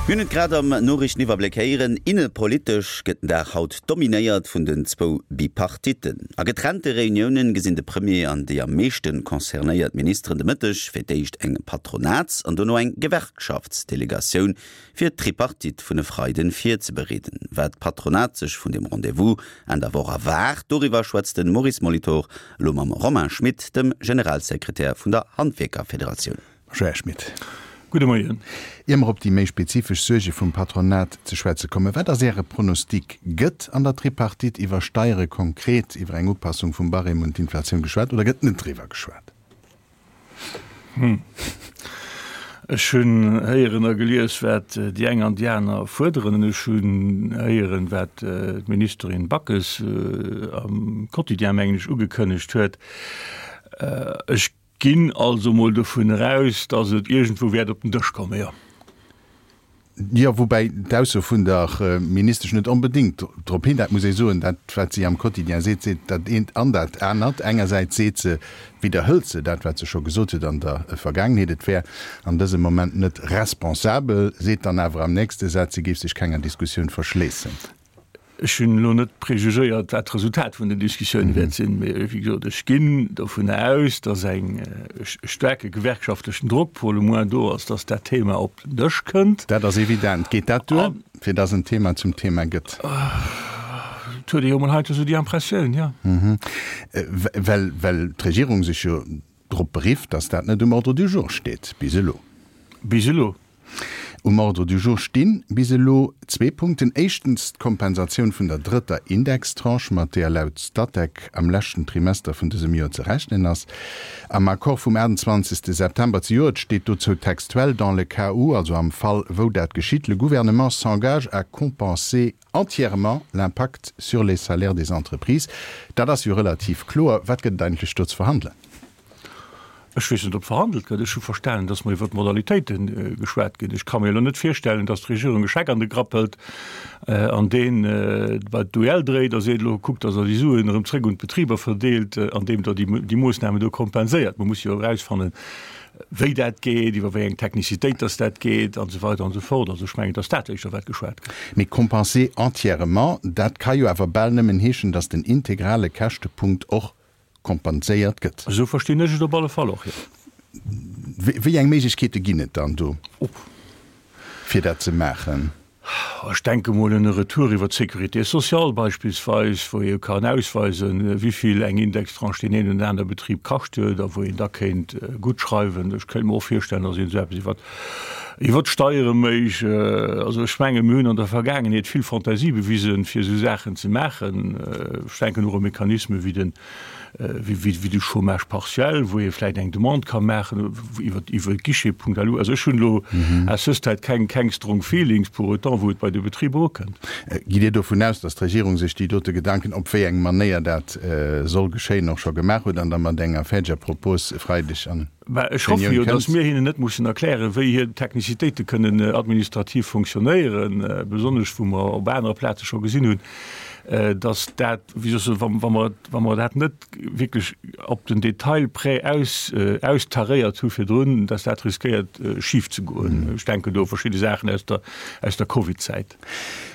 Mir hunn et grad am Noriichteniwwerbléck héieren, Innepolitesch gëtt den Dag haut dominéiert vun den zwou Bipartitten. A getrennte Reuniounen gesinn de Premier an déi am meeschte concernéiert Ministeren de Mëtteg fir d'éischt eng Patronats an dono eng Gewerkschaftsdelegatioun, fir d'Tripartite vun e Freiden virzebereeden. Wat d'Patronat sech vun dem Rendez-vous Enn der Woch erwaart, doriwwer schwätzt de Maurice Molitor elo mam Romain Schmit, dem Generalsekretär vun der Handwierkerfederatioun. Bonjour Här Schmit. Gudde Moien. Ier mer op déi méi spezifesch Suerge vum Patronat ze schwätze kommen, wat ass Äre Pronostic? Gëtt an der Tripartite iwwer Steiere, konkret iwwer eng Upassung vum Barème un d'Inflatioun geschwat oder gëtt net driwwer geschwat? Hm. Ech hunn héieren a gelies, wat déi eng an déi aner fuerderen. An ech hunn héieren, wat d'Ministerin Backes am Quotidien, mengen ech, ugekënnegt huet. Ech ginn also mol dovun eraus, datt et iergendwou wäert op den Dësch kommen, jo. Jo, woubäi d'Ausso vun der Ministesch net onbedéngt drop hin, dat muss ee soen, dat wat si am Quotidien seet, seet dat eent an dat anert. Engersäits seet se, widderhëlt se dat wat se scho gesot huet an der Vergaangenheet, et wär an dësem Moment net responsabel, seet dann awer am nächste Saz, si géif sech kenger Diskussioun verschléissen. Ech hunn elo net prejugéiert, wat d'Resultat vun den Diskussioune wäert sinn, mee wéi gesot, ech ginn dovun aus, datt eng staarke gewerkschaftlechen Drock pour le moins do ass, datt dat Thema op den Dësch kënnt. Dat ass evident. Geet dat duer, fir datt en Thema zum Thema gëtt? Et huet ee jo emol heiansdo esou déi Impressioun, jo. Well, well d'Regierung sech jo drop berifft, datt dat net um Ordre du jour steet bis elo. Bis elo. Um Ordre du jour sti bis elo zwee Punkten. Éischtens d'Kompensatioun vun der drëtter Indextranche, mat deeër laut Statec am leschten Trimester vun dësem Joer ze rechnen ass. Am Accord vum 28 September zejoert steet dozou textuell, Dans le cas où, also am Fall wou dat geschitt, le Gouvernement s'engage à compenser entièrement l'impact sur les salaires des entreprises. Dat ass jo relativ kloer. Wat gëtt et eigentlech do ze verhandelen? Ech weess net, ob verhandelt gëtt. Ech hu verstanen, datt mer iwwer d'Modalitéite geschwat ginn. Ech ka mir elo net virstellen, datt d'Regierung e Scheck an de Grapp hëlt an deen bei d'UEL dréit a seet, elo kuckt, datt Der déi Suen erëm zréck un d'Betriber verdeelt, andeem Der déi Moossnamen do kompenséiert. Mer musse jo erausfannen, wéi dat geet, iwwer wéi eng Technicitéit datt dat geet an esou weider an esou fort. Also ech mengen, datt dat éischter wat geschwat gëtt. Mee compenser entièrement, dat ka jo awer bal nëmmen heeschen, datt den integrale Käschtepunkt och kompenséiert gëtt. Esou verstinn ech et op alle Fall och, jo. Wéi eng Méiglechkeete ginn et dann do, fir dat ze maachen? Ech denke mol un e Retour iwwer d'Sécurité sociale beispillsweis, wou ee kann ausweisen, wéi vill eng Indextranche deen een oder aner Betrib kascht huet a wou een da kéint guttschreiwen. Ech kéint mer och virstellen, datt een esou eppes iwwer iwwer d'Steiere méich. Also ech menge mir hunn an der Vergaangenheet vill Fantasie bewisen, fir esou Saachen ze maachen. Ech denken och u Mechanisme wéi den, wéi de Chômage partiel, wou ee vläicht eng Demande ka maachen iwwer iwwer Guichet.lu. Also ech hunn elo à ce stade keng keng strong feelings pour autant, wou et bei de Betriber ukënnt. Gitt Dir dovun aus, datt d'Regierung sech déi dote Gedanken, op wéi eng Manéier dat soll geschéien, och scho gemaach huet an da mat enger fäerdeger Propos e Freideg an Mä ech hoffe jo, datt mir hinnen net mussen erklären, wéi hir Technicitéite kënnen administrativ fonctionnéieren, besonnesch wou mer op anere Plaze scho gesinn hunn, datt dat, wéi soll ech soen, wa mer, wa mer dat net wierklech op den Detail près aus, austaréiert hu virdrun, datt dat riskéiert schif ze goen. Ech denken do u verschidde Saachen aus der, aus der Covidzäit.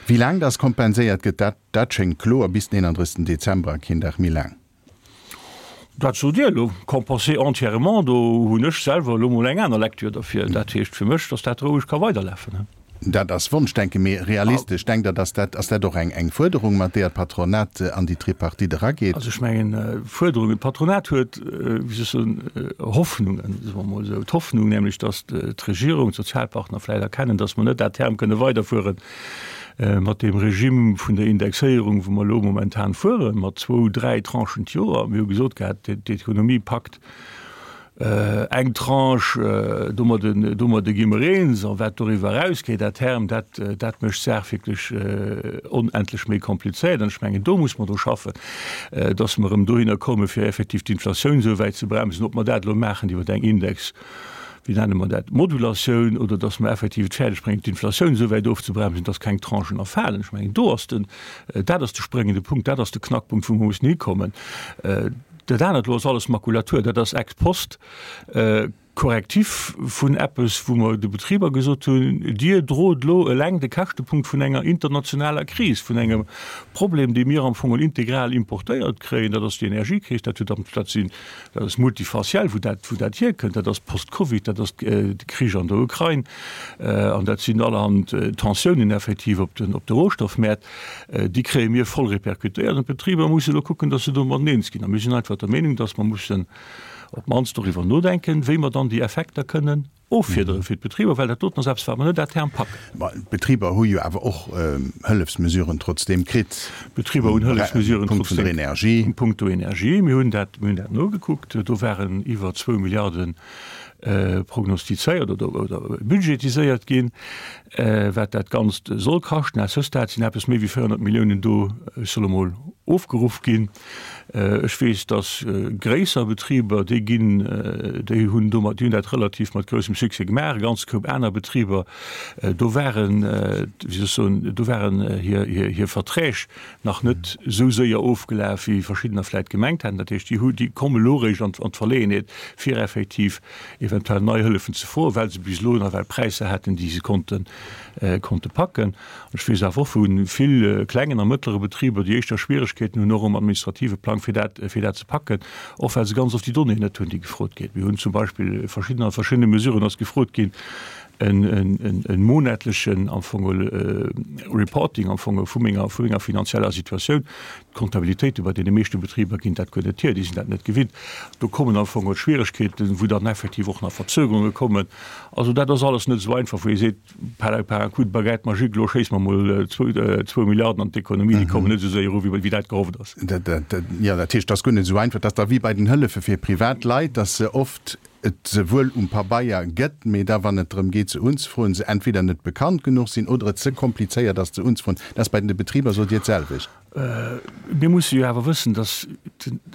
Wéi laang datt kompenséiert gëtt, dat, dat schéngt kloer, bis den 31 Dezember a keen Dag méi laang. Dat sot Dir elo, compenser entièrement, do hunn ech selwer elo mol eng aner Lecture derfir. Dat heescht fir mech, datt dat roueg ka weiderlafen. Dat ass Wonschdenken, mee realistesch, denkt Der, datt dat, ass dat och eng eng Fuerderung, mat deeër d'Patronat an déi Tripartite erageet? Also ech mengen, Fuerderungen, d'Patronat huet, wéi soll ech soen, Hoffnungen, soe mer emol esou, d'Hoffnung nämlech, datt d'Regierung, d'Sozialpartner vläicht erkennen, datt mer net à terme kënne weiderfueren, Mat deem Regime vun der Indexéierung, wou mer elo momentan fueren, mat zwou, dräi Tranchen d'Joer, mir hu gesot gehat, d'Ekonomie packt eng Tranche, domadde, domadde gi mer eens, a wat doriwwer erausgeet à terme, dat, dat mécht d'Saach wierklech onendlech méi komplizéiert. An ech mengen, do muss mer dru schaffen, dass mer erëm dohinner kommen, fir effektiv d'Inflatioun esou wäit ze bremsen, ob mer dat elo maachen iwwer eng Index, wéi nenne mer dat, Modulatioun, oder dass mer effektiv et fäerdeg bréngen, d'Inflatioun esou wäit ofzebremsen, dass keng Tranchen erfalen. Ech mengen, do ass den, dat ass de spréngende Punkt, dat ass de Knackpunkt, wou mer mussen hikommen. Dat anert elo ass alles Makulatur, dat ass ex post. Correctif vun eppes, wou mer de Betriber gesot hunn, Dir drot elo eleng de Käschtepunkt vun enger internationaler Kris, vun engem Problem, dee mir am Fong integral importéiert kréien, dat ass déi Energiekris, dat huet am, dat sinn, dat ass multifaciell, wou dat, wou dat hierkënnt, dat ass post-Covid, dat ass de Krich an der Ukrain an dat sinn allerhand Tensiounen effektiv op den, op de Rohstoffmäert, déi kréie mir voll répercutéiert an d'Betriber musse elo kucken, datt se domadden eens ginn. A mir sinn einfach der Meenung, datt mer mussen, op d'mannst doriwwer nodenken, wéi mer dann déi Effekter kënnen offiederen fir d'Betriber, well dat doten ass eppes, wat mer net à terme packen. Ma d'Betriber hu jo awer och Hëllefsmesuren trotzdeem kritt. D'Betriber hunn Hëllefsmesuren trotzdeem. Vun der Energie. Punkto Energie. Mir hunn dat, mir hunn dat nogekuckt. Do waren iwwer zwou Milliarde prognostizéiert oder, oder budgetiséiert ginn, wat dat Ganzt soll kaschten. À ce stade sinn eppes méi wéi 400 Milliounen do, ech soll emol, ofgeruff ginn. Ech weess, dass gréisser Betriber, déi ginn, déi hunn domat, déi hunn dat relativ mat groussem Succès gemaach. E ganze Koup aner Betriber, do waren, wéi soll ech soen, do waren hir, hir, hir Verträg nach net esou séier ofgelaf, wéi verschiddener vläicht gemengt haten. Dat heescht, déi hu, déi komme elo eréischt an, an d'Verleeënheet, fir effektiv eventuell nei Hëllefen ze froen, well se bis elo nawell Präisser haten, déi se konnten, konnte packen. Ech weess awer och vu vill klengen a mëttlere Betriber, déi éischter Schwieregkeeten hunn, och um administrative Plang, fir dat, fir dat ze packen, och well se ganz oft déi Donnéeën net hunn, déi gefrot ginn. Mir hunn zum Beispill verschidden, a verschiddene Mesuren ass gefrot ginn, en, en, en monatlechen am Fong Reporting am Fong vu menger, vu menger finanzieller Situatioun. D'Kontabilitéite bei deene meeschte Betriber ginn dat guer net hier, déi sinn dat net gewinnt. Do kommen am Fong Schwieregkeeten, wou dann effektiv och nach Verzögerunge kommen. Also dat ass alles net esou einfach, wou ee seet, Par par un coup de baguette magique, elo schéisse mer emol zwou Milliarden an d'Ekonomie, déi kommen net esou séier eru wéi dat gehofft ass. Jo, dat heescht, et ass guer net esou einfach. Et ass da wéi bei den Hëllefe fir privat Leit, datt se oft et se wuel um Pabeier gëtt, mee da wann et drëm geet se unzefroen, se entweder net bekannt genuch sinn oder et ze komplizéiert ass ze unzefroen. Dat ass bei den Betriber, sot Dir, d'selwecht. Mir musse jo awer wëssen, datt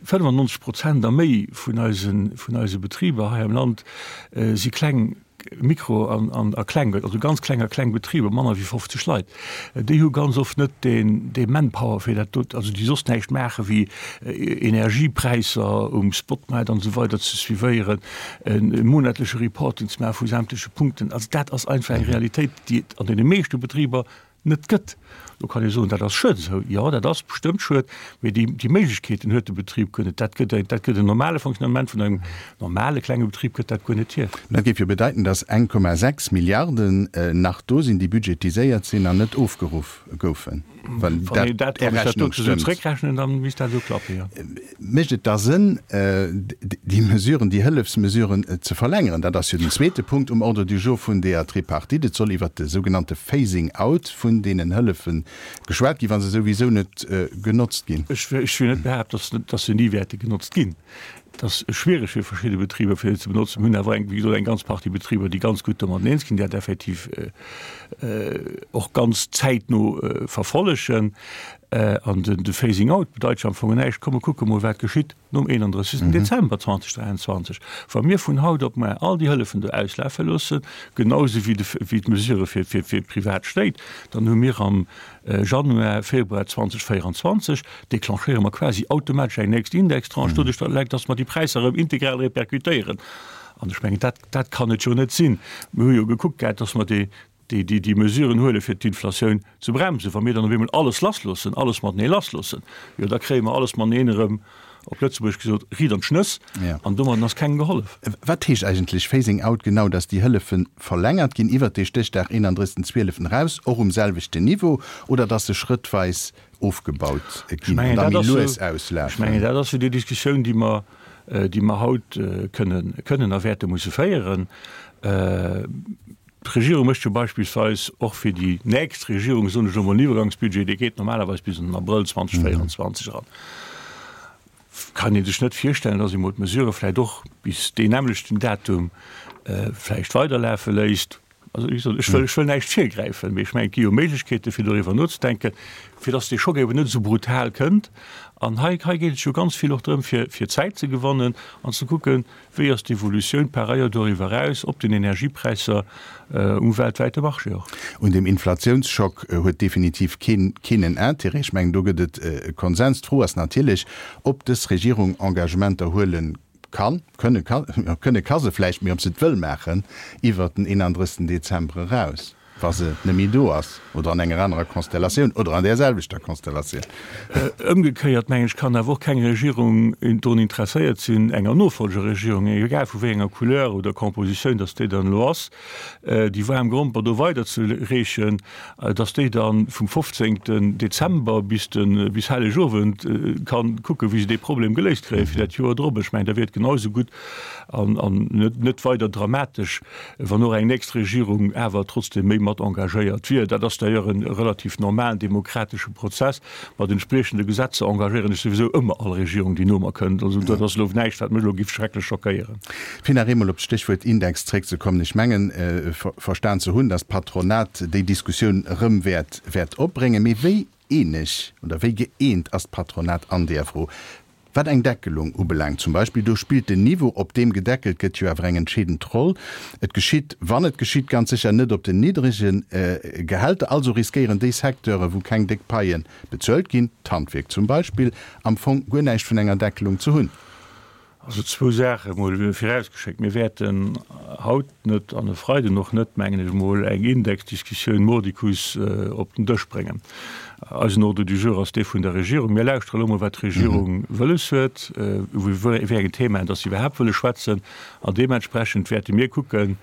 95 Prozent a méi vun eise Betriber hei am Land si kleng Mikro an a kleng, also ganz kleng a kleng Betriber, manner wéi 50 Leit, déi hu ganz oft net deen dee Manpower fir dat do, also déi soss näischt maache wéi Energiepräisser um Spotmaart an esou weider ze suivéieren, e monatleche Reporting ze maache vu sämtleche Punkten. Also dat ass einfach eng Realitéit, déi et an deene meeschte Betriber net gëtt. Lo kann ee soen, dat ass schued esou. Jo, dat ass bestëmmt schued, mee déi, déi Méiglechkeeten huet de Betrib guer net. Dat gëtt, dat gëtt en normale Fonctionnement vun engem normale klenge Betrib gëtt dat guer net hier. Dat géif jo bedeiten, datt 1,6 Milliarden nach do sinn, déi budgetiséiert sinn an net ofgeruff goufen, wann dat Är Rechnung stëmmt. Zréckrechnen, dann misst dat esou klappen, jo. Mécht et da Sënn, déi Mesuren, déi Hëllefsmesuren ze verlängeren? Dat ass jo den zweete Punkt um Ordre du jour vun deeër Tripartite. Et soll iwwert de sougenannte Phasing out vun deenen Hëllefe geschwat ginn, wa se souwisou net genotzt ginn. Ech wëll net behaapten, datt se ni wäerte genotzt ginn. Et ass schwiereg fir verschidde Betriber, fir se ze benotzen. Mir hunn awer, wéi gesot, eng ganz Partie Betriber, déi ganz gutt domat eens ginn, déi dat effektiv och ganz zäitno verfollegen. An de Phasing out bedeit jo am Fong näischt. Komm mer kucke mol, wat geschitt nom 31. Dezember 2023, wa mir vun haut op muer all déi Hëllefen do auslafe loossen, genausou wéi d'Mesurë fir d'privat Stéit. Dann hu mir am Januar, Februar 2024 declenchéiere mer quasi automatesch eng nächst Indextranche, doduerch datt mer déi Präisser erëm integral répercutéieren. An ech mengen, dat kann et jo net sinn. Mir hu jo gekuckt gehat, datt mer déi déi déi déi Mesuren huele fir d'Inflatioun ze bremsen, wa mir dann op eemol alles lassloossen, alles matenee lassloossen, jo da kréie mer alles mateneen erëm, op Lëtzebuergesch gesot, riit an d'Schnëss an domadden ass kengem gehollef. Wat heescht eigentlech Phasing out genau? Datt déi Hëllefe verlängert ginn iwwert dee Stéchdag 31. 12. eraus, och um selwechten Niveau, oder datt se schrëttweis ofgebaut ginn an da méi lues auslafen? Ech mengen, dat ass jo déi Diskussioun, déi mer, déi mer haut kënnen, kënnen a wäerte musse féieren. D'Regierung mécht jo beispillsweis och fir déi nächst Regierung, soen ech elo mol, en Iwwergangsbudget, dee geet normalerweis bis an den Abrëll 2024 eran. Kann ee sech net virstellen, dass ee mol d'Mesurë vläicht och bis deen nämmlechten Datum vläicht weiderlafe léisst. Also, wéi gesot, ech wëll, ech wëll näischt virgräifen, mee ech mengen, et gi jo Méiglechkeete fir doriwwer nozedenken, fir dass dee Schock eben net esou brutal kënnt. An hei, hei geet et jo ganz vill och drëm, fir, fir Zäit ze gewannen an ze kucken, Wéi ass d'Evolutioun par ailleurs doriwwer eraus op den Energiepräisser um weltwäite Marché och? Un dem Inflatiounsschock huet definitiv keen keen en Intérêt. Ech mengen, do gëtt et e Konsens. D'Fro ass natierlech, ob dës Regierung Engagementer huele. Kann, kënne ka, jo, kënne ka se vläicht, mee ob se et wëll maachen iwwert den 31. Dezember eraus, wa se net méi do ass oder an enger anerer Konstellatioun oder an där selwechter Konstellatioun. Ëmgekéiert, mengen ech, kann awer och keng Regierung drun interesséiert sinn, enger Nofolgeregierung, egal vu wéi enger Couleur oder Compositioun dass déi dann elo ass, déi waarm Gromper do weiderzereechen, dass déi da vum 15. Dezember bis de bis Hellegowend kann kucken, wéi se dee Problem geléist kréie fir dat Joer drop. Ech mengen, da wier et genau esou gutt an an net net weider dramatesch, wann och eng nächst Regierung awer trotzdem méi mat engagéiert wier. Dat ass d'ailleurs e relativ normalen demokratesche Prozess. Mat entspriechende Gesetzer engagéieren ech souwisou ëmmer all Regierung, déi no mer kënnt. Also dat ass elo näischt, wat mech elo giff schrecklech schockéieren. Fir nach eemol op d'Stéchwuert Index zréckzekommen, Ech mengen, verstan ze hunn, datt d'Patronat déi Diskussioun erëm wäert wäert opbréngen. Mee wéi eeneg oder wéi gëeent ass d'Patronat an där Fro? Wat eng Deckelung ubelaangt zum Beispill, do spillt den Niveau, op deem gedeckelt gëtt, jo awer eng entscheedend Roll. Et geschitt, wann et geschitt, ganz sécher net op den niddrege Gehälter. Also riskéieren déi Secteure wou keng déck Paie bezuelt ginn, d'Handwierk zum Beispill, am Fong guer näischt vun enger Deckelung ze hunn. Also zwou Saache mol virausgeschéckt, Mir wäerten haut net an e Freiden och net, mengen ech emol, eng Indexdiskussioun mordicus op den Dësch bréngen. Eisen Ordre du jour ass dee vun der Regierung. Mir lauschtere elo mol, wat d'Regierung wëlles huet, iwwer wéi eng Themaen dass se iwwerhaapt wëlle schwätzen. An deementsprechend wäerte mir kucken,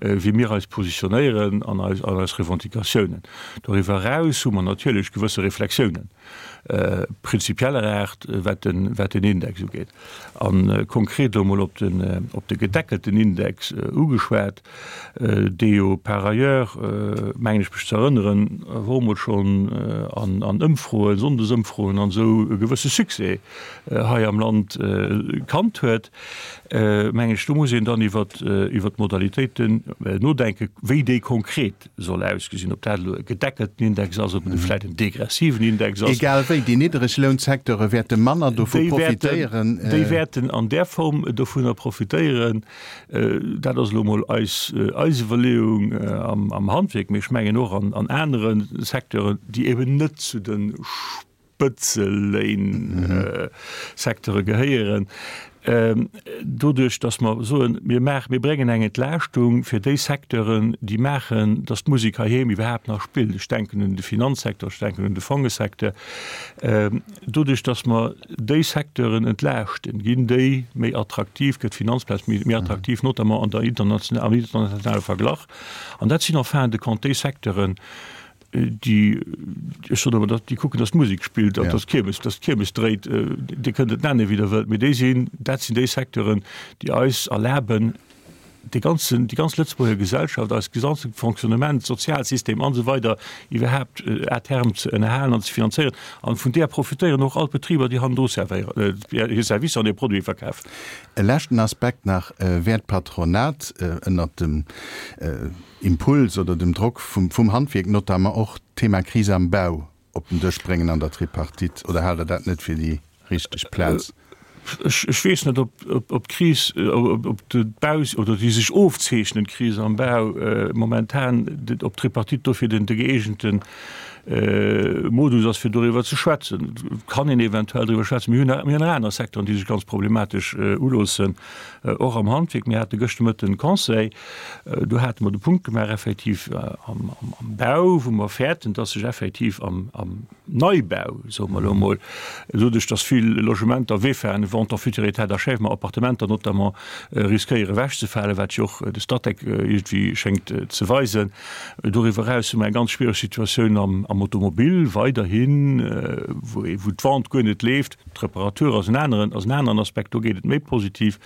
wéi mir eis positionéieren an eis an eis Revendicatiounen. Doriwwer eraus hu mer natierlech gewësse Reflexiounen prinzipieller Aart, wat den, wat den Index ugeet. A konkret elo mol op den, op de gedeckelten Index ugeschwat, dee jo par ailleurs, mengen ech mech ze erënneren, och emol schonn an, an Ëmfroen, Sonndesëmfroen an esou e gewësse Succès hei am Land kannt huet, mengen ech, do muss een dann iwwer, iwwer d'Modalitéiten nodenken, wéi déi konkret soll ausgesinn, ob dat elo e gedeckelten Index ass, ob et vläicht en degressiven Index ass. Egal wéi, déi Niddreglounsecteure wäerte manner dovu profitéieren. Déi wäerten an där Form dovunner profitéieren. Dat ass elo emol eis Iwwerleeung am Handwierk, mee ech mengen och an anere Secteuren, déi eben net zu de Spëtzeléin-Secteure gehéieren, doduerch datt mer soen, mir maachen, mir bréngen eng Entlaaschtung fir déi Secteuren, déi maachen, datt d'Musek heiheem iwwerhaapt nach spillt, ech denken un de Finanzsecteur, ech denken un de Fongesecteur, doduerch datt mer déi Secteuren entlaaschten, ginn déi méi attraktiv, gëtt d'Finanzplaz méi attraktiv, notamment an der international, am internationale Verglach. An dat sinn en fin de compte déi Secteuren, déi, ech soen ëmmer, déi kucken, datt d'Musek spillt an datt d'Kiermes, datt d'Kiermes dréit. Dir kënnt et nennen, wéi Der wëllt, mee déi sinn, dat sinn déi Secteuren, déi eis erlaben, dee ganzen, déi ganz Lëtzebuerger Gesellschaft, eist gesamte Fonctionnement, Sozialsystem an esou weider iwwerhaapt à terme ze ënnerhalen an ze finanzéieren. An vun där profitéieren och all d'Betriber, déi hannendru servéieren, hir Servicer an hir Produite verkafen. E leschten Aspekt nach, Wäert d'Patronat ënnert dem Impuls oder dem Drock vum Handwierk notamment och d'Thema Kris am Bau op den Dësch bréngen an der Tripartite, oder haalt Der dat net fir déi richteg Plaz? Ech weess net, ob d'Kris, ob d'Bau oder déi sech ofzeechnend Kris am Bau momentan, ob d'Tripartite dofir den gëeegente Modus ass, fir doriwwer ze schwätzen. Et kann een eventuell driwwer schwätzen. Mir hunn nach aner Secteuren, déi sech ganz problematesch uloossen, och am Handwierk. Mir hate gëschter Mëtten Conseil. Do hate mer de Punkt gemaach effektiv am Bau, wou mer fäerten, dass sech effektiv am Neibau, soe mer elo emol, doduerch dass vill Logementer, VEFAen, Vente en futur état d'achèvement, Appartementer notamment, riskéiere ewechzefalen, wat jo och de Statec iergendwéi schéngt ze weisen. Doriwwer eraus hu mer eng ganz schwiereg Situatioun am Automobil weiderhin, wou d'Vente guer net leeft. D'Reparatur ass en aneren, ass en aneren Aspekt, do geet et méi positiv.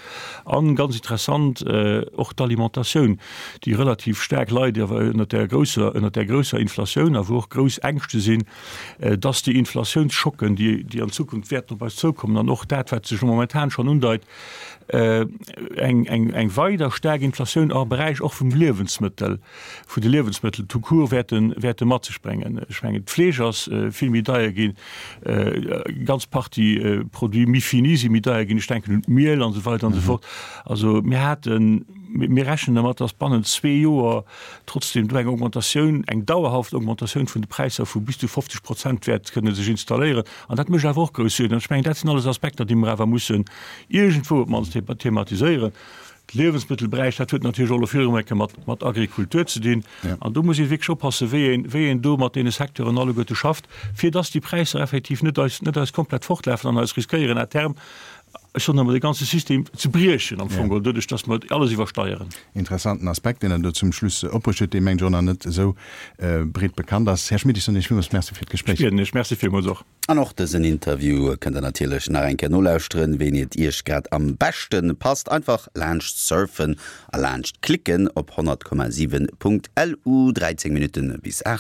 An ganz interessant och d'Alimentatioun, déi relativ staark leit awer ënnert där grousser, ënnert där grousser Inflatioun a wou och grouss Ängschte sinn, dass déi Inflatiounsschocken, déi, déi an Zukunft wäerten op eis zoukommen an och dat, wat sech momentan schonn undeit, eng, eng, eng weider staark Inflatioun am Beräich och vum Liewensmëttel, vun de Liewensmëttel tout court wäerten, wäerte mat sech bréngen. Ech mengen, d'Fleesch ass vill méi deier ginn, eng ganz Partie Produits méi finis si méi deier ginn, ech denken un d'Miel an esou weider an esou fort. Also mir haten, mir rechnen dermat, datt bannent zwee Joer trotzdem do eng Augmentatioun, eng dauerhaft Augmentatioun vun de Präisser vu bis zu 50 Prozent wäert kënne sech installéieren. An dat mécht awer och grouss Suergen. An ech mengen, dat sinn alles Aspekter, déi mer awer mussen iergendwou op d'mannst thematiséieren. De Liewensmëttelberäich, dat huet natierlech och elo vill erëm eng Kéier mat, mat Agrikultur ze dinn. An do muss ee wierklech oppassen, wéi een, wéi een do mat deene Secteuren alleguerte schafft, fir dass déi Präisser effektiv net eis, net eis komplett fortlafen an eis riskéieren à terme, ech soen emol, de ganze System ze briechen am Fong geholl, doduerch dass mer alles iwwersteieren. Interessanten Aspekt, deen Der do zum Schluss opbruecht hutt, dee mengen ech och nach net esou breet bekannt ass. Här Schmit, ech soen Iech villmools Merci fir d'Gespréich. Ech bieden Iech. Merci villmools och. An och dësen Interview kënnt der natierlech nach eng Kéier nolauschteren, wéini et Iech grad am beschte passt. Einfach laanscht surfen a laanscht klicken op 100,7.lu. 13 Minutten bis 8.